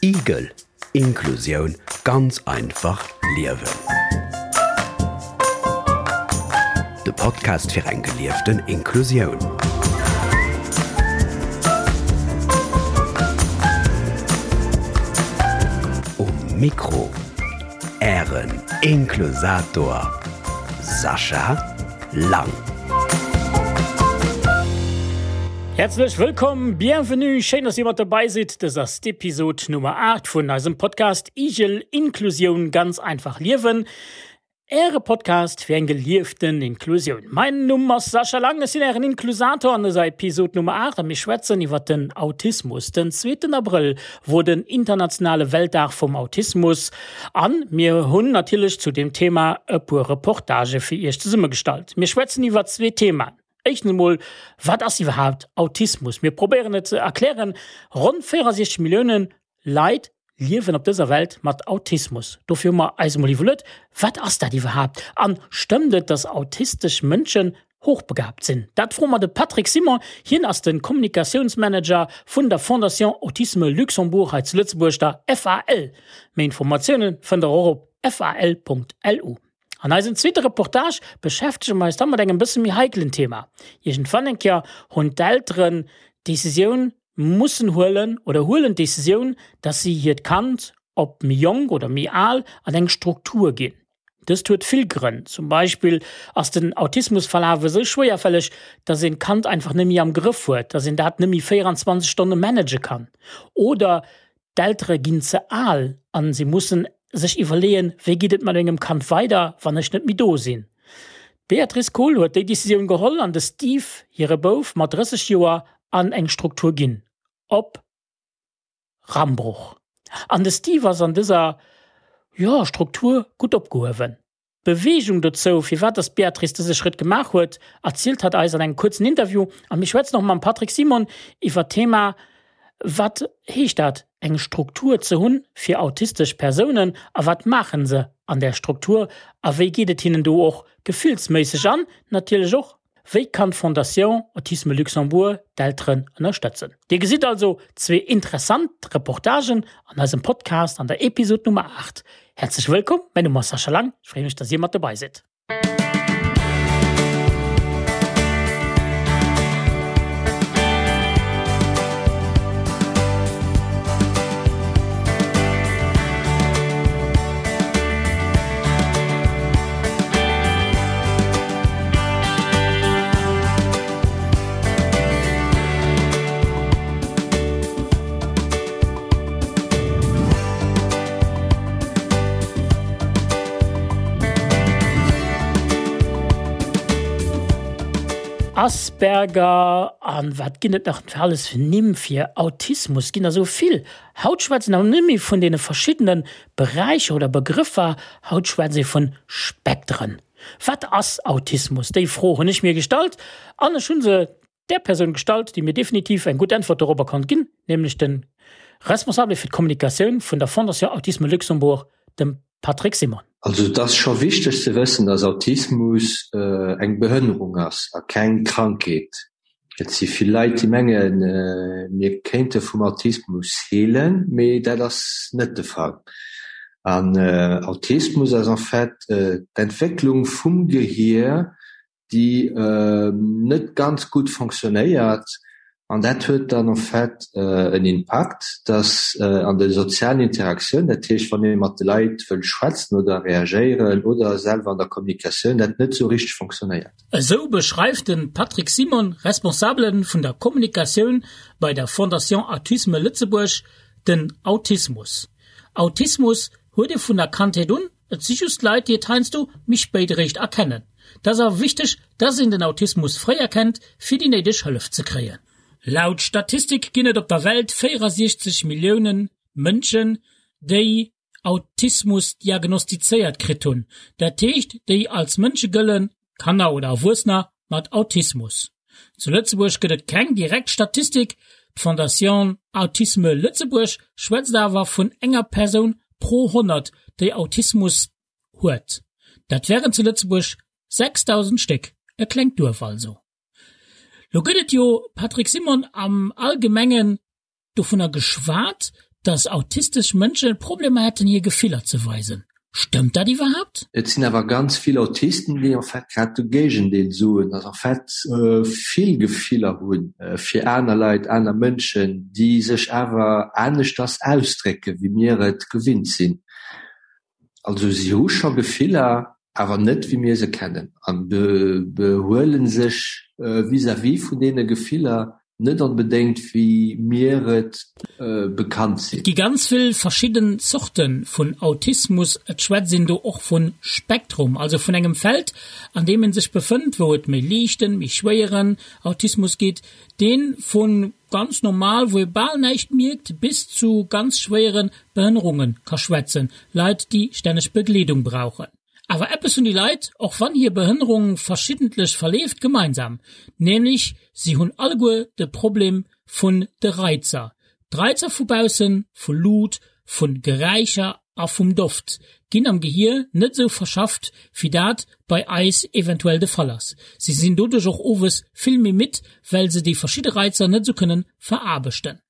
Igel, Inklusioun ganz einfach liewen. De Podcast fir eng gelieften Inklusioun. Um Mikro Ären Inklusator Sascha Lang. Häerzlech wëllkomm, bienvenue, schéin dass dir mat dobäi sidd. Dës ass d'Episod Nummer 8 vun eisem Podcast Igel, Inklusioun ganz einfach liewen. Äre Podcast fir eng gelieften Inklusioun. Mäin Numm ass Sascha Lang, ech sinn Ären Inklusator an dëser Episod Nummer 8 a mir schwätzen iwwer den Autismus. Den zweeten Abrëll wor den internationale Weltdag vum Autismus an mir hunn natierlech zu deem Thema e puer Reportagë fir Iech zesummegestallt. Mir schwätzen iwwer zwee Themaen. Éischtens emol, wat ass iwwerhaapt Autismus? Mir probéieren et ze erklären. Ronn 64 Millioune Leit liewen op dëser Welt mat Autismus. Dofir hu mer eis emol iwwerluet, wat ass dat iwwerhaapt? An stëmmt et, dass autistesch Mënschen hochbegabt sinn? Dat froe mer de Patrick Simon. Hien ass de Kommunikatiounsmanager vun der Fondation Autisme Luxembourg hei zu Lëtzebuerg, der FAL. Méi Informatioune fënnt der och op fal.lu. An eisem zweete Reportage beschäftege mer eis da mat engem bësse méi heikelen Thema. Iergendwann eng Kéier hunn d'Elteren d'Decisioun mussen huelen oder huelen d'Decisioun, dass si hiert Kand, ob méi jonk oder méi al, an eng Struktur ginn. Dëst huet vill Grënn, zum Beispill ass den Autismusverlaf esou schwéierfälleg, dass een d'Kand einfach net méi am Grëff huet, dass een dat net méi 24 Stonne manage kann. Oder d'Eltere ginn ze al an si mussen sech iwwerleeën, wéi geet et mat mengem Kand weider, wann ech net méi do sinn. D'Beatrice Kohl huet déi Decisioun geholl an de Steve, hire Bouf mat 30 Joer, an eng Struktur ginn op Rambruch. An de Steve ass an dëser, jo, Struktur gutt opgehuewen. D'Beweegung dozou, firwat dass d'Beatrice dëse Schrëtt gemaach huet, erzielt hatt eis an engem kuerzen Interview. A mir schwätzen och mam Patrick Simon iwwer d'Thema, Wat heescht dat, eng Struktur ze hunn fir autistesch Persounen a wat maachen se an där Struktur a wéi geet et hinnen do och gefillsméisseg an natierlech och, Wéi kann d'Fondation Autisme Luxembourg d'Elteren ënnerstëtzen? Dir gesitt also zwee interessant Reportagen an eisem Podcast an der Episod Nummer 8. Häerzlech wëllkomm, mäin Numm ass Sascha Lang, ech freeë mech, dass dir mat dobei sidd. Asperger an wat ginn et nach alles fir Nimm fir Autismus? Ginn der sou vill. Haut schwätzen awer net méi vun deene verschiddene Beräicher oder Begrëffer, haut schwätzt ee vun Spektren. Wat ass Autismus? Déi Fro hunn ech mir gestallt an ech hu se där Persoun gestallt, déi mir definitiv eng gutt Äntwert dorobber konnt ginn, nämlech de Responsabele fir d'Kommunikatioun vun der Fondation Autisme Luxembourg, dem Patrick Simon. Also et ass scho wichteg ze wëssen, dass Autismus eng Behënnerung ass a keng Krankheet. Et si vill Leit, déi mengen, mir kéinte vum Autismus heelen, mee dat ass net de Fall. An Autismus ass en fait d'Entwécklung vum Gehier, déi net ganz gutt fonctionnéiert. An dat huet dann en fait en Impakt, dass an de sozialen Interaktioun, dat heescht wann ee mat de Leit wëll schwätzen oder reagéieren oder selwer an der Kommunikatioun, dat net esou richteg fonctionnéiert. Esou beschreift de Patrick Simon, Responsabele vun der Kommunikatioun bei der Fondation Autisme Lëtzebuerg, den Autismus. Autismus huet ee vun der Kandheet un, et si just Leit, déi et heiansdo méi spéit eréischt erkennen. Et ass awer wichteg, dass een den Autismus fréi erkennt, fir déi néideg Hëllef ze kréien. Laut Statistik ginn et op der Welt 64 Millioune Mënschen, déi Autismus diagnostizéiert kritt hunn, dat heescht déi als Mënsche gëllen, Kanner oder Erwuessener mat Autismus. Zu Lëtzebuerg gëtt et keng direkt Statistik, d'Fondation Autisme Lëtzebuerg schwätzt awer vun enger Persoun pro 100, déi Autismus huet. Dat wären zu Lëtzebuerg 6.000 Stéck, e klengt Duerf also. Lo gëtt et jo, Patrick Simon, am Allgemengen dovunner geschwat, dass autistesch Mënsche Problemer hätten hir Gefiller ze weisen. Stëmmt dat iwwerhaapt? Et sinn awer ganz vill Autisten, déi en fait grad de Géigendeel soen, dass en fait vill Gefiller hu fir aner Leit, aner Mënschen, déi sech awer aneschters ausdrécken, wéi mir et gewinnt sinn. Also si hu scho Gefiller, awer net wéi mir se kennen an behuele sech vis-à-vis vun deene Gefiller net onbedéngt wéi mir et bekannt sinn. Et gi ganz vill verschidden Zorte vun Autismus. Et schwätzt een do och vun Spektrum, also vun engem Feld an deem een sech befënnt, wou et méi liichten, méi schwéieren Autismus gitt, deen vu ganz normal, wou ee bal näischt mierkt, bis zu ganz schwéiere Behënnerunge ka schwätzen, Leit déi stänneg Begleedung brauchen. Awer eppes hunn déi Leit, och wann hir Behënnerung verschiddentlech verleeft, gemeinsam, nämlech si hunn alleguer de Problem vun de Reizer. D'Reizer vu baussen, vu Luut, vu Geräischer a vum Doft, ginn am Gehier net esou verschafft, wéi dat bei eis eventuell de Fall ass. Si sinn doduerch och owes vill méi midd, well se déi verschidde Reizer net esou kënnen veraarbechten.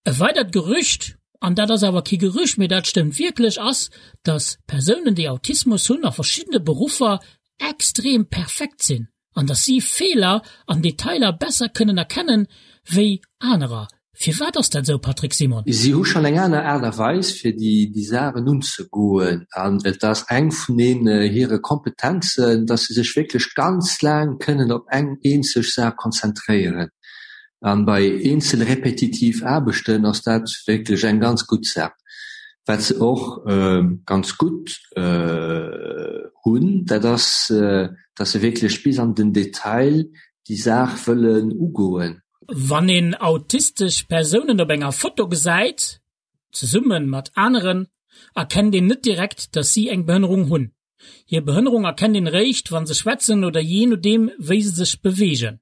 E weidert Gerücht, an dat ass awer kee Gerücht, mee dat stëmmt wierklech, ass, dass Persounen, déi Autismus hunn, a verschiddene Beruffer extrem perfekt sinn an dass si Feeler an Detailer besser kënnen erkennen, wéi anerer. Firwat ass dat esou, Patrick Simon? Si hu schonn eng aner Aart a Weis, fir déi Saachen unzegoen an et ass eng vun deenen hire Kompetenzen, dass se sech wierklech ganz laang kënnen op eng eenzeg Saach konzentréieren. An bei eenzel repetitiv Aarbechten ass dat wierklech eng ganz gutt Saach. Wat se och ganz gutt hunn, dat ass, dass se wierklech bis an den Detail déi Saach wëllen ugoen. Wann een autistesch Persounen op enger Foto gesäit, zesumme mat aneren, erkennt een net direkt, dass si eng Behënnerung hunn. Hir Behënnerung erkennt een eréischt, wa se schwätzen oder jee nodeem wéi se sech beweegen.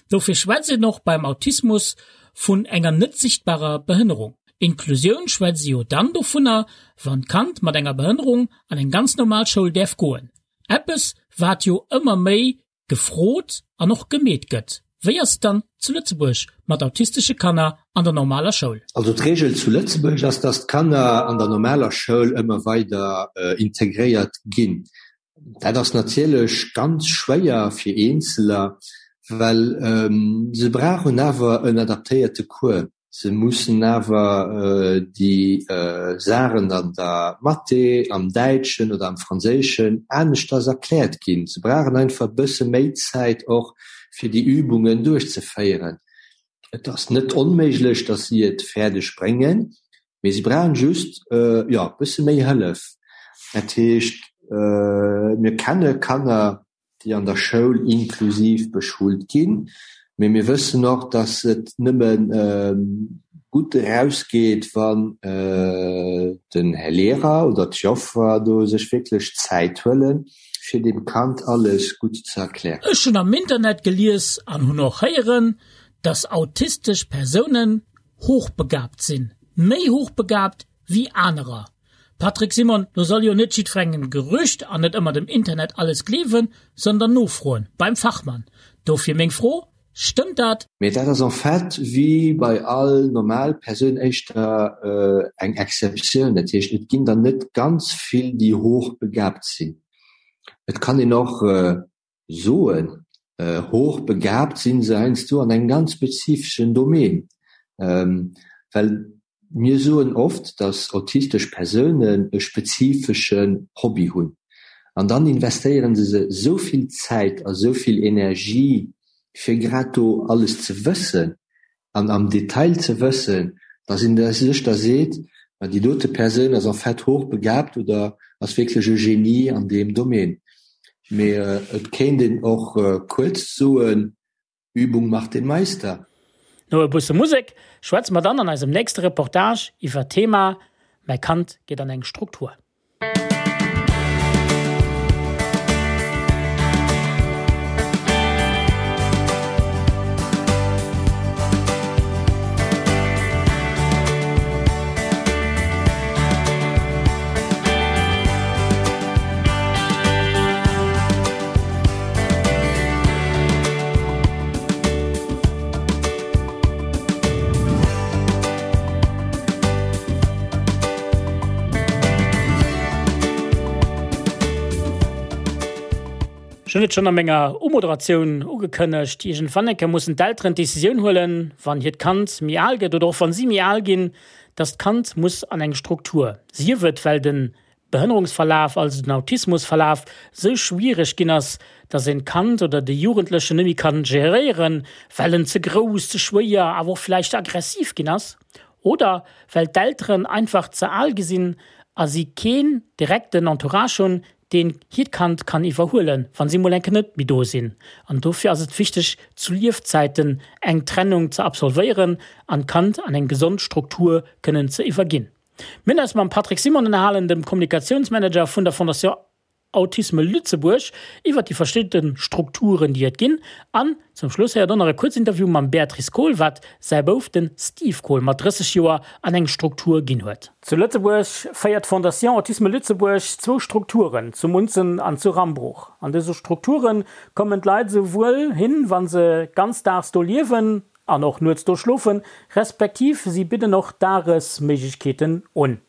Dofir schwätzt een och beim Autismus vun enger net sichtbarer Behënnerung. Inklusioun schwätzt ee jo dann dovunner, wann d'Kand mat enger Behënnerung an eng ganz normal Schoul däerf goen. Eppes wat jo ëmmer méi gefrot an och gemeet gëtt. Wéi ass et dann zu Lëtzebuerg mat autistesche Kanner an der normaler Schoul? Also d'Reegel zu Lëtzebuerg ass, dass d'Kanner an der normaler Schoul ëmmer weider integréiert ginn. Dat ass natierlech ganz schwéier fir Eenzeler, well se brauchen awer en adaptéierte Cours. Se mussen awer déi Saachen an der Mathé, am Däitschen oder am Franséischen aneschters erkläert ginn. Se brauchen einfach e bësse méi Zäit och, fir déi Übungen duerchzeféieren. Et ass net onméiglech, datt si et fäerdeg bréngen, mee si brauchen just, jo, e bësse méi Hëllef. Dat heescht, mir kenne Kanner, déi an der Schoul inklusiv beschult ginn. Mee mir wëssen och, dass et nëmme gutt erausgeet, wann den Här Lehrer oder d'Joffer do sech wierklech Zäit huelen, fir dem Kand alles gutt ze erklären. Ech hunn am Internet gelies an hunn och héieren, dass autistesch Persounen hochbegabt sinn, méi hochbegabt wéi anerer. Patrick Simon, Lo soll jo net jiddwerengem Gerücht an net ëmmer dem Internet alles gleewen, sondern nofroen beim Fachmann. Dofir meng Fro, Stëmmt dat? Mee dat ass en fait wéi bei all normal Persoun éischter eng Exceptioun. Dat heescht, et ginn der net ganz vill, déi hochbegabt sinn. Et kann een och soen, hochbegabt sinn se heiansdo an engem ganz spezifeschen Domaine, well mir soen oft, datt autistesch Persounen e spezifeschen Hobby hunn an dann investéieren se se esou vill Zäit a esou vill Energie fir grad do alles ze wëssen an am Detail ze wëssen, dass een sech da seet, ma déi dote Persoun ass en fait hochbegabt oder ass wierklech e Genie an deem Domaine. Mee et kéint een och kuerz soen, Übung macht den Meister. No e busse Musek schwätze mer dann an eisem nächste Reportage iwwer d'Thema Mäi Kand geet an eng Struktur. Ech hunn et schonn a menger Umoderatioun ugekënnegt, Iergendwann eng Kéier mussen d'Elteren d'Decisioun huelen, wann hiert Kand méi al gëtt oder och wann si méi al ginn, dass d'Kand muss an eng Struktur, sief et well de Behënnerungsverlaf, also den Autismusverlaf, sou schwiereg ginn ass, dass een d'Kand oder de Jugendlechen net méi kann geréieren, well en ze grouss, ze schwéier, awer och vläicht ze aggressiv ginn ass, oder well d'Elteren einfach ze al gi sinn a si keen direkten Entourage hunn, deen hiert Kand kann iwwerhuelen, wa si mol eng Kéier net méi do sinn. An dofir ass et wichteg, zu Liefzäiten eng Trennung ze absolvéieren an d'Kand an eng gesond Struktur kënnen ze iwwerginn. Mir hunn eis mam Patrick Simon ënnerhalen, dem Kommunikatiounsmanager vun der Fondation Autisme Lëtzebuerg, iwwert déi verschidde Strukturen, déi et ginn. An zum Schluss héiert och nach e kuerz Interview mam Béatrice Kohl, wat säi Bouf, den Steve Kohl, mat 30 Joer an eng Struktur ginn huet. Zu Lëtzebuerg féiert d'Fondation Autisme Lëtzebuerg zwou Strukturen, zu Munzen an zu Rambruch. An dëse Strukture kommen d'Leit esouwuel hin, wa se ganzdaags do liewen an och nuets do schlofen, respektiv si bidden och Dagesméiglechkeeten un.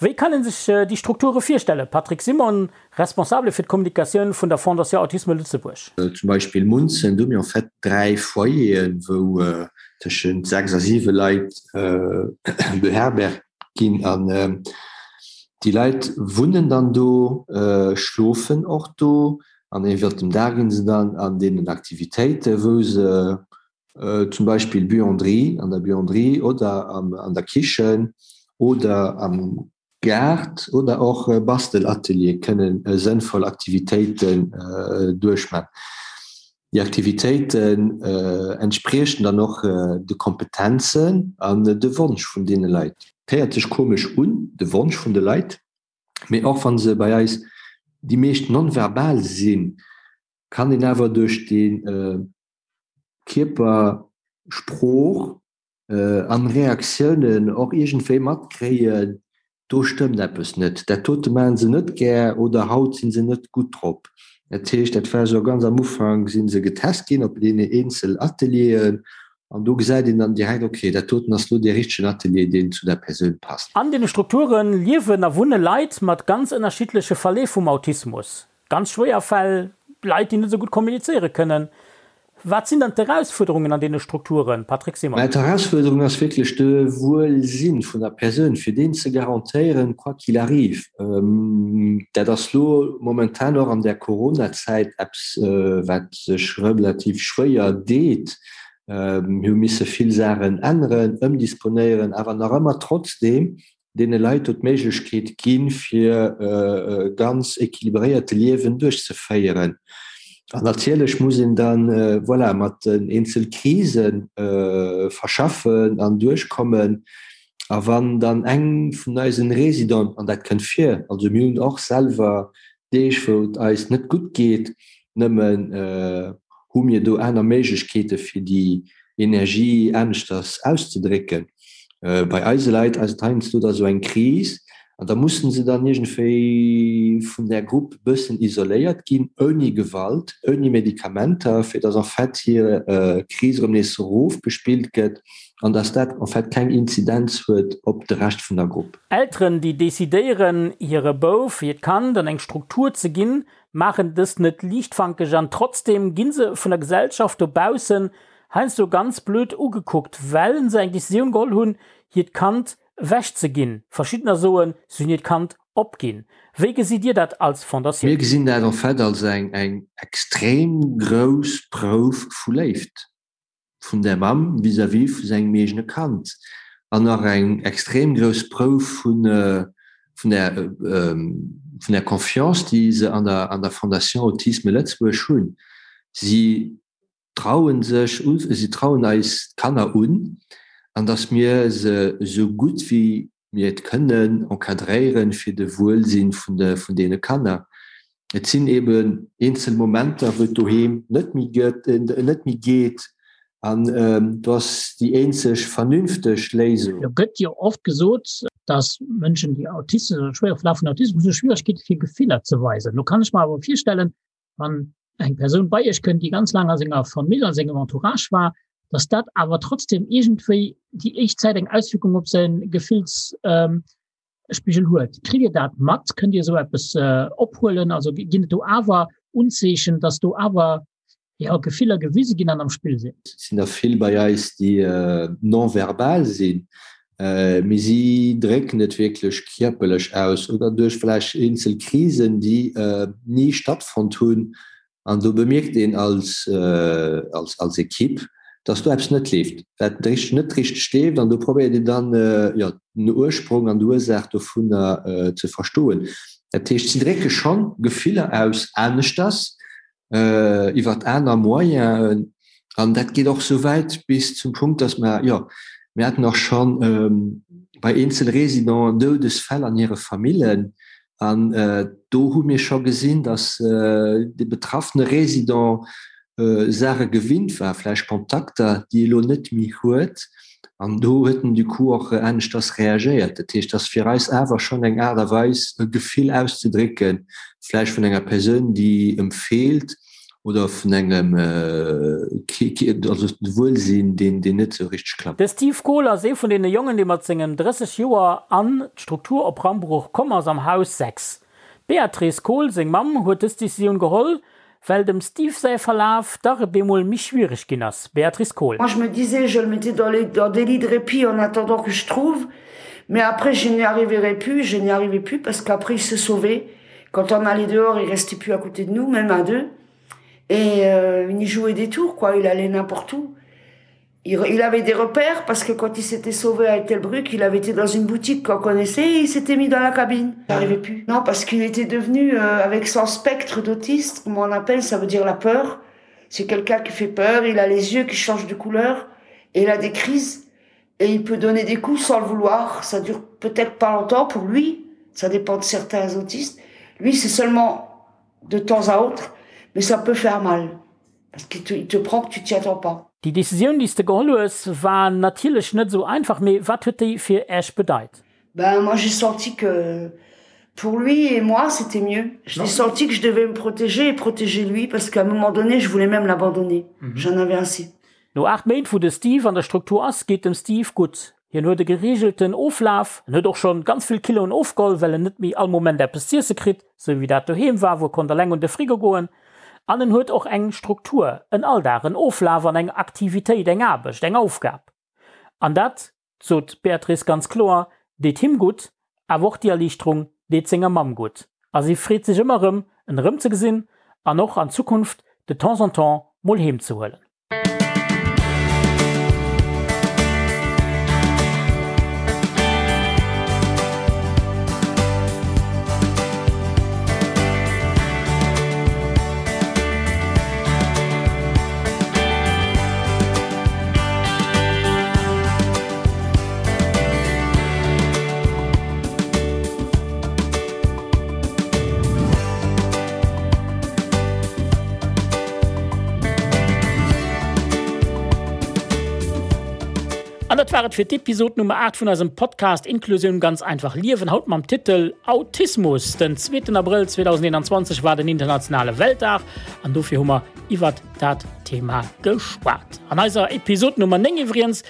Wéi kann een sech déi Strukture virstellen? Patrick Simon, Responsabele fir d'Kommunikatioun vun der Fondation Autisme Lëtzebuerg. Zum Beispill Munzen, do hu mir en fait 3 Foyeren, wou tëschent 6 a 7 Leit beherbergt ginn. An déi Leit wunnen dann do, schlofen och do an iwwert dem Dag ginn se dann an deenen Aktivitéiten, wou se zum Beispill Buanderie, an der Buanderie oder an der Kichen oder am Gaart oder och Bastelatelier kënnen sënnvoll Aktivitéiten duerchman. Déi Aktivitéiten entspriechen dann och de Kompetenzen an de Wonsch vun deene Leit. Et héiert sech komesch un, de Wonsch vun de Leit, mee och wa se bei eis déi meescht non-verbal sinn, kann een awer duerch déi Kierpersprooch an Reaktiounen och iergendwéi matkréien, do stëmmt eppes net, dat dote maachen se net gär oder haut si se net gutt drop. Dat heescht, dat war esou ganz am Ufank si se getest ginn op deene eenzel Atelieren an do gesäit een dann direkt, okay, dat doten ass elo dee richtegen Atelier, deen zu der Persoun passt. An deene Strukture liewen a wunne Leit mat ganz ënnerschiddleche Verleef vum Autismus. Ganz schwéier Fäll, Leit, déi net esou gutt kommunizéiere kënnen. Wat sinn dann d'Erausfuerderungen an deene Strukturen, Patrick Simon? Mä d'Erausfuerderung ass wierklech de Wuelsinn vun der Persoun, fir deen ze garantéieren, quoi qu'il arrive. Dat ass lo momentan och an der Coronazäit eppes, wat sech relativ schwéier deet. Mir hu misse vill Saachen änneren, ëmdisponéieren, awer nach ëmmer trotzdeem deene Leit do d'Méiglechkeet ginn, fir e ganz équilibréierte Liewen duerchzeféieren. An natierlech muss een dann, voilà, mat den eenzel Krise verschaffen an duerchkommen. A wann dann eng vun eisen Résidenten, an dat kënnt vir, also mir hunn och selwer Deeg, wou et eis net gutt geet, nëmmen hu mir do aner Méiglechkeete fir déi Energie aneschters auszedrécken. Bei eise Leit ass et heiansdo da sou eng Kris an da mussen se dann iergendwéi vun där Grupp e bëssen isoléiert ginn, ouni Gewalt, ouni Medikamenter, fir dass en fait hir Kris erëm nees erofgespillt gëtt an dass dat en fait keng Inzidenz huet op de Rescht vun der Grupp. Elteren, déi decidéieren, hire Bouf, hiert Kand an eng Struktur ze ginn, maachen dëst net liichtfankeg an trotzdeem gi se vun der Gesellschaft dobaussen heiansdo ganz blöd ugekuckt, well se eng Decisioun geholl hunn, hiert Kand ewech ze ginn. Verschiddener soen, se hunn hiert Kand opginn. Wéi gesitt Dir dat als Fondatioun? Mir gesinn dat en fait als eng extrem grouss Prouf vu Léift. vun der Mamm vis-à-vis vu sengem eegene Kand an nach eng extrem grouss Prouf vun vun der vun der Confiance, déi se an der an der Fondation Autisme Lëtzebuerg hunn. Si trauen sech u, si trauen eis d'Kanner un an datt mir se esou gutt wéi mir et kënnen encadréieren fir de Wuelsinn vun de vun deene Kanner. Et sinn eben eenzel Momenter, wou et doheem net méi gëtt, net méi geet an do ass déi eenzeg vernünfteg Léisung. Lo gëtt jo oft gesot, dass Mënschen, déi Autisten oder schwéiere Verlaf vun Autismus hunn, Schwieregkeete fir Gefiller ze weisen. Lo kann ech mer awer virstellen, wann eng Persoun bei Iech kënnt, déi ganz laang a senger Famill, a sengem Entourage war, dass dat awer trotzdem iergendwéi déi éischt Zäit eng Auswierkung op säi Gefillsspigel huet. Kritt Dir dat mat? Kënnt Dir esou eppes ophuelen? Also ginn et do awer. Unzeechen, dass do awer jo, Gefiller gewise ginn an am Spill sinn. Et sinn der vill bei eis, déi non-verbal sinn, mee si drécken et wierklech kierperlech aus oder duerch vläicht eenzel Krisen, déi ni stattfonnt hunn. An do bemierkt een als, als Ekipp, dass do eppes net leeft, wat net richteg leeft. An do probéiert een dann, jo, den Ursprong an d'Ursaach dovunner ze verstoen. Dat heescht, si drécke schonn Gefiller aus aneschters, iwwert aner Moyenen. An dat geet och esou wäit bis zum Punkt, dass mer, jo, mir haten och schonn bei eenzel Résidenten Doudesfäll an hire Famillen. An do hu mir scho gesinn, dass de betraffene Résident Saache gewinnt war, vläicht Kontakter, déi e lo net méi huet. An do huet en du coup och aneschters reagéiert. Dat heescht, et ass fir eis awer schonn eng Aart a Weis, e Gefill auszedrécken, vläicht vun enger Persoun, déi em feelt oder vun engem also Wuelsinn, deen net esou richteg klappt. De Steve Kohl ass ee vun deene Jongen, dee mat sengen 30 Joer an d'Struktur op Rambruch komm ass, am Haus 6. D'Beatrice Kohl, seng Mamm, huet dës Decisioun geholl, well dem Steve säi Verlaf dach e bemol méi schwiereg ginn ass. Béatrice Kohl. Moi je me disais je le mettais dans les dans des lits de répit en attendant que je trouve mais après je n'y arriverai plus je n'y arrivais plus parce qu'après il se sauvait quand on allait dehors il restait plus à côté de nous même à deux et euh, il jouait des tours quoi il allait n'importe où il, il avait des repères parce que quand il s'était sauvé à Ettelbruck il avait été dans une boutique qu'on connaissait et il s'était mis dans la cabine n'arrivait plus non parce qu'il était devenu euh, avec son spectre d'autiste comme on appelle ça veut dire la peur c'est quelqu'un qui fait peur il a les yeux qui changent de couleur et il a des crises et il peut donner des coups sans le vouloir ça dure peut-être pas longtemps pour lui ça dépend de certains autistes lui c'est seulement de temps à autre mais ça peut faire mal parce qu'il te, il te prend que tu t'y attends pas. Déi Decisioun, déi s de geholl hues, war natierlech net esou einfach, mee wat huet déi fir Äech bedeit? Ben moi j'ai senti que pour lui et moi c'était mieux. J'ai senti que je devais me protéger et protéger lui parce qu'à un moment donné je voulais même l'abandonner. Mm -hmm. J'en avais assez. No 8 Méint wou de Steve an der Struktur ass, geet dem Steve gutt. Hien huet e gereegelten Oflaf, en huet och schonn ganz vill Kiloen ofgeholl, well en net méi all Moment eppes z'iesse kritt, sou wéi dat doheem war, wou e konnt eleng un de Frigo goen. An en huet och eng Struktur, en Alldag, en Oflaf an eng Aktivitéit, eng Aarbecht, eng Aufgab. An dat, sot d'Beatrice ganz kloer, deet him gutt, awer och déi Erliichterung deet senger Mamm gutt. A si freet sech ëmmer erëm, en erëmzegesinn an och an Zukunft de temps en temps mol heem ze huelen. An dat war et fir d'Episod Nummer 8 vun eisem Podcast Inklusioun ganz einfach liewen, haut mam Titel Autismus. Den zweeten Abrëll 2021 war den internationale Weltdag an dofir hu mer iwwert dat Thema geschwat. An eiser Episod Nummer 9 iwwregens,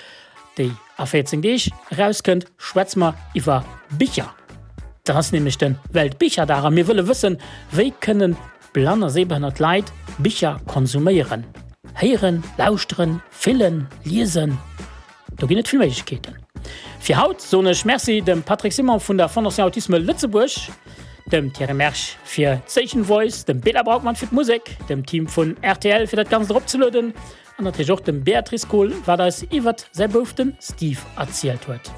déi a 14 Deeg erauskënnt, schwätze mer iwwer Bicher. Dat ass nämlech de Weltbicherdag a mir wëlle wëssen, wéi kënnen blann a sehbehënnert Leit Bicher konsuméieren? Héieren, lauschteren, fillen, liesen, do ginn et vill Méiglechkeeten. Fir haut soen ech Merci dem Patrick Simon vun der Fondation Autisme Lëtzebuerg, dem Thierry Mersch fir d'Station Voice, dem Bela Braukmann fir d'Musek, dem Team vun rtl fir dat Ganzt eropzelueden An natierlech och dem Beatrice Kohl, wat eis iwwert säi Bouf den Steve erzielt huet.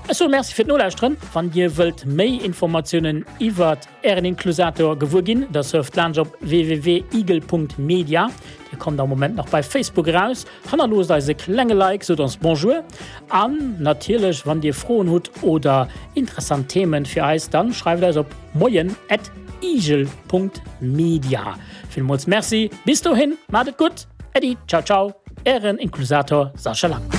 Ech soe Merci fir d'Nolauschteren. Wann Dir wëllt méi Informatiounen iwwert Ären Inklusator gewuer ginn, da surft laanscht op www.igel.media. Dir kommt am Moment nach bei Facebook eraus. Hannerloosst eis e klenge Like, sot ons Bonjour. An natierlech, wann Dir Froen hutt oder interessant Themen fir eis, dann schreift eis op moien at igel.media. Villmools Merci, bis dohin, maacht et gutt! Äddi, ciao ciao, Ären Inklusator Sascha Lang.